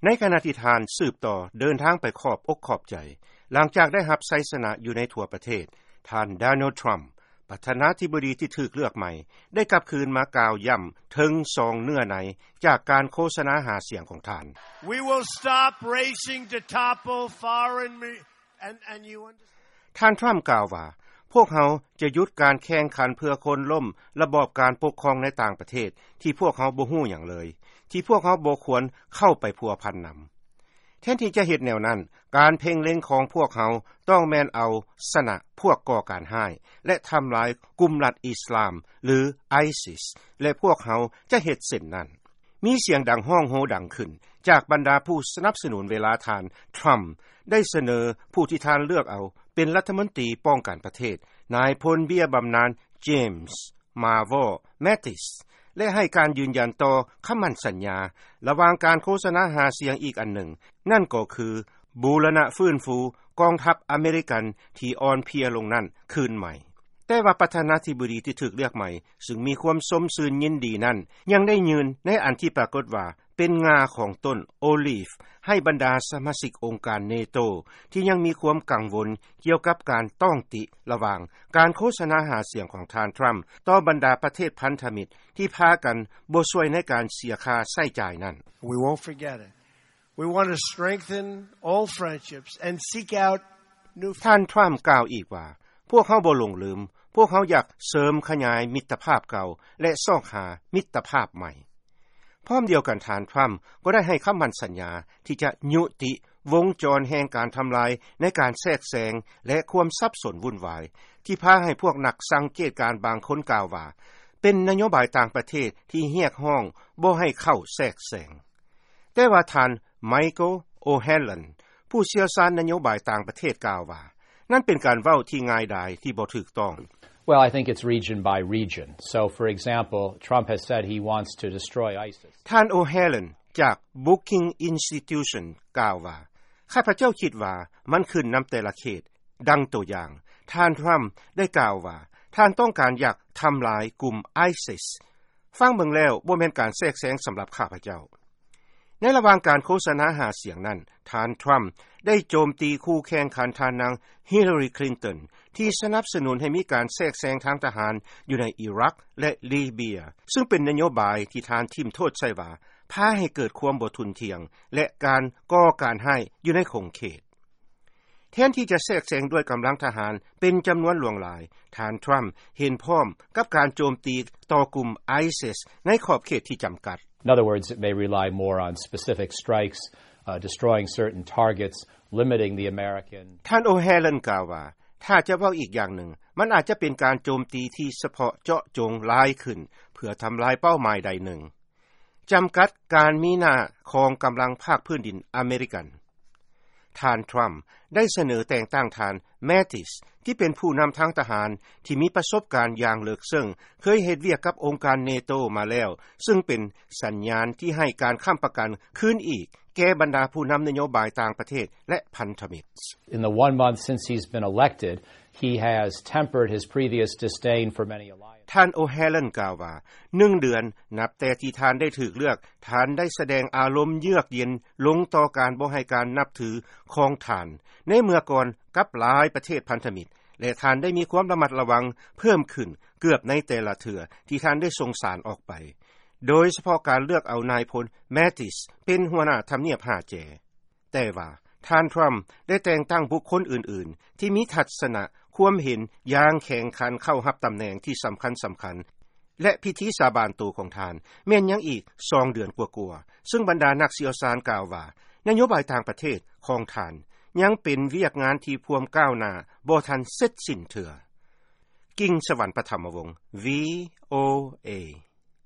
ໃນຂະນະທີ່ທ່ານສືບຕໍ່ເດີນທາງໄປຂອບອົກຂອບໃຈ ຫຼັງຈາກໄດ້ຮັບໄຊຊະນະຢູ່ໃນທົ່ວປະເທດ, ທ່ານ Donald Trump ປະທານາທິບໍດີທີ່ຖືກເລືອກໃໝ່ ໄດ້ກັບຄືນມາກ່າວຢ້ຳເຖິງສອງເນື້ອໃນຈາກການໂຄສະນາຫາສຽງຂອງທ່ານ. We will stop racing to topple foreign mi-, and, and you understand. ທ່ານ Trump ກ່າວວ່າ ພວກເຮົາຈະຢຸດການແຂ່ງຂັນເພື່ອໂຄ່ນລົ້ມລະບອບການປົກຄອງໃນຕ່າງປະເທດ ທີ່ພວກເຮົາບໍ່ຮູ້ຫຍັງເລີຍ, ທີ່ພວກເຮົາບໍ່ຄວນເຂົ້າໄປພົວພັນນຳ. ແທນທີ່ຈະເຮັດແນວນັ້ນ, ການເພັ່ງເລັງຂອງພວກເຮົາຕ້ອງແມ່ນເອົາຊະນະພວກກໍ່ການຮ້າຍ ແລະ ທຳລາຍກຸ່ມລັດອິສລາມ ຫຼື ISIS ແລະ ພວກເຮົາຈະເຮັດເຊັ່ນນັ້ນ. ມີສຽງດັງຮ້ອງໂຮດັງຂຶ້ນຈາກບັນດາຜູ້ສະໜັບສະໜູນເວລາທ່ານ Trump ໄດ້ສະເໜີຜູ້ທີ່ທ່ານເລືອກເອົາເປັນລັດຖະມົນຕີປ້ອງກັນປະເທດ, ນາຍພົນເບ້ຍບຳນານ James Mavor Mattis ແລະ ໃຫ້ການຢືນຢັນຕໍ່ຄຳໝັ້ນສັນຍາລະຫວ່າງການໂຄສະນາຫາສຽງອີກອັນໜຶ່ງ, ນັ້ນກໍຄືບູລະນະຟື້ນຟູກອງທັບອາເມລິກັນທີ່ອ່ອນເພຍລົງນັ້ນຄືນໃໝ່. ແຕ່ວ່າປະທານາທິບໍດີທີ່ຖືກເລືອກໃໝ່ ຊຶ່ງມີຄວາມຊົມຊື່ນຍິນດີນັ້ນ ຍັງໄດ້ຍື່ນໃນອັນທີ່ປາກົດວ່າເປັນງ່າຂອງຕົ້ນໂອລີຟ ໃຫ້ບັນດາສະມາຊິກອົງການ NATO ທີ່ຍັງມີຄວາມກັງວົນກ່ຽວກັບການຕ້ອງຕິລະຫວ່າງການໂຄສະນາຫາສຽງຂອງທ່ານ Trump ຕໍ່ບັນດາປະເທດພັນທະມິດທີ່ພາກັນບໍ່ຊ່ວຍໃນການເສຍຄ່າໃຊ້ຈ່າຍນັ້ນ. We won't forget it. We want to strengthen old friendships and seek out new. ທ່ານ Trump ກ່າວອີກວ່າ ພວກເຮົາບໍ່ຫຼົງລືມ, ພວກເຮົາຢາກເສີມຂະຫຍາຍມິດຕະພາບເກົ່າ ແລະ ຊອກຫາມິດຕະພາບໃໝ່. ພ້ອມດຽວກັນ, ທ່ານ Trump ກໍໄດ້ໃຫ້ຄຳໝັ້ນສັນຍາທີ່ຈະຍຸຕິວົງຈອນແຫ່ງການທຳລາຍໃນການແຊກແຊງ ແລະ ຄວາມສັບສົນວຸ່ນວາຍ ທີ່ພາໃຫ້ພວກນັກສັງເກດການບາງຄົນກ່າວວ່າ ເປັນນະໂຍບາຍຕ່າງປະເທດທີ່ຮຽກຮ້ອງບໍ່ໃຫ້ເຂົ້າແຊກແຊງ. ແຕ່ວ່າທ່ານ Michael O'Hanlon ຜູ້ຊ່ຽວຊານນະໂຍບາຍຕ່າງປະເທດກ່າວວ່າ ນັ້ນເປັນການເວົ້າທີ່ງ່າຍດາຍທີ່ບໍ່ຖືກຕ້ອງ. Well, I think it's region by region. So, for example, Trump has said he wants to destroy ISIS. ທ່ານ O'Hanlon ຈາກ Brookings Institution ກ່າວວ່າ ຂ້າພະເຈົ້າຄິດວ່າມັນຂຶ້ນນຳແຕ່ລະເຂດ. ດັ່ງຕົວຢ່າງ, ທ່ານ Trump ໄດ້ກ່າວວ່າ ທ່ານຕ້ອງການຢາກທຳລາຍກຸ່ມ ISIS. ຟັງເບິ່ງແລ້ວບໍ່ແມ່ນການແຊກແຊງສຳລັບຂ້າພະເຈົ້າ. ໃນລະຫວ່າງການໂຄສະນາຫາສຽງນັ້ນ, ທ່ານ Trump ໄດ້ໂຈມຕີຄູ່ແຂ່ງຂັນທ່ານນາງ Hillary Clinton ທີ່ສະໜັບສະໜູນໃຫ້ມີການແຊກແຊງທາງທະຫານຢູ່ໃນອີຣັກ ແລະ ລີເບຍ, ຊຶ່ງເປັນນະໂຍບາຍທີ່ທ່ານຖິ້ມໂທດໃສ່ວ່າ ພາໃຫ້ເກີດຄວາມບໍ່ທຸ່ນທ່ຽງ ແລະ ການກໍ່ການຮ້າຍຢູ່ໃນຂົງເຂດ. ແທນທີ່ຈະແຊກແຊງດ້ວຍກຳລັງທະຫານເປັນຈຳນວນຫຼວງຫຼາຍ, ທ່ານ Trump ເຫັນພ້ອມກັບການໂຈມຕີຕໍ່ກຸ່ມ ISIS ໃນຂອບເຂດທີ່ຈຳກັດ. In other words, it may rely more on specific strikes, uh, destroying certain targets, limiting the American. ທ່ານ O'Hanlon ກ່າວວ່າ ຖ້າຈະເວົ້າອີກຢ່າງໜຶ່ງ, ມັນອາດຈະເປັນການໂຈມຕີທີ່ສະເພາະເຈາະຈົງຫຼາຍຂຶ້ນ ເພື່ອທຳລາຍເປົ້າໝາຍໃດໜຶ່ງ. ຈຳກັດການມີໜ້າຂອງກຳລັງພາກພື້ນດິນອາເມລິກັນ. ທ່ານ Trump ໄດ້ສະເໜີແຕ່ງຕັ້ງທ່ານ Mattis ທີ່ເປັນຜູ້ນຳທາງທະຫານທີ່ມີປະສົບການຢ່າງເລິກເຊິ່ງ, ເຄີຍເຮັດວຽກກັບອົງການ NATO ມາແລ້ວ, ຊຶ່ງເປັນສັນຍານທີ່ໃຫ້ການຄ້ຳປະກັນຄືນອີກແກ່ບັນດາຜູ້ນຳນະໂຍບາຍຕ່າງປະເທດ ແລະ ພັນທະມິດ. In the one month since he's been elected, he has tempered his previous disdain for many alliances. ທ່ານ O'Hanlon ກ່າວວ່າ ໜຶ່ງເດືອນນັບແຕ່ທີ່ທ່ານໄດ້ຖືກເລືອກ, ທ່ານໄດ້ສະແດງອາລົມເຍືອກເຢັນລົງຕໍ່ການບໍ່ໃຫ້ການນັບຖືຂອງທ່ານໃນເມື່ອກ່ອນກັບຫຼາຍປະເທດພັນທະມິດ ແລະ ທ່ານໄດ້ມີຄວາມລະມັດລະວັງເພີ່ມຂຶ້ນເກືອບໃນແຕ່ລະເທື່ອທີ່ທ່ານໄດ້ສົ່ງສານອອກໄປ, ໂດຍສະເພາະການເລືອກເອົານາຍພົນ Mattis ເປັນຫົວໜ້າທຳນຽບຫ້າແຈ. ແຕ່ວ່າທ່ານ Trump ໄດ້ແຕ່ງຕັ້ງບຸກຄົນອື່ນໆ ທີ່ມີທັດສະນະຄວາມເຫັນຢ່າງແຂງຂັນເຂົ້າຮັບຕຳແໜ່ງທີ່ສຳຄັນໆ ແລະ ພິທີສາບານໂຕຂອງທ່ານແມ່ນຍັງອີກສອງເດືອນກວ່າໆ, ຊຶ່ງບັນດານັກຊ່ຽວຊານກ່າວວ່າ ນະໂຍບາຍຕ່າງປະເທດຂອງທ່ານຍັງເປັນວຽກງານທີ່ພວມກ້າວໜ້າບໍ່ທັນເສັດສິ້ນເທື່ອ. ກິ່ງສະຫວັນ ປະຖຳມະວົງ VOA.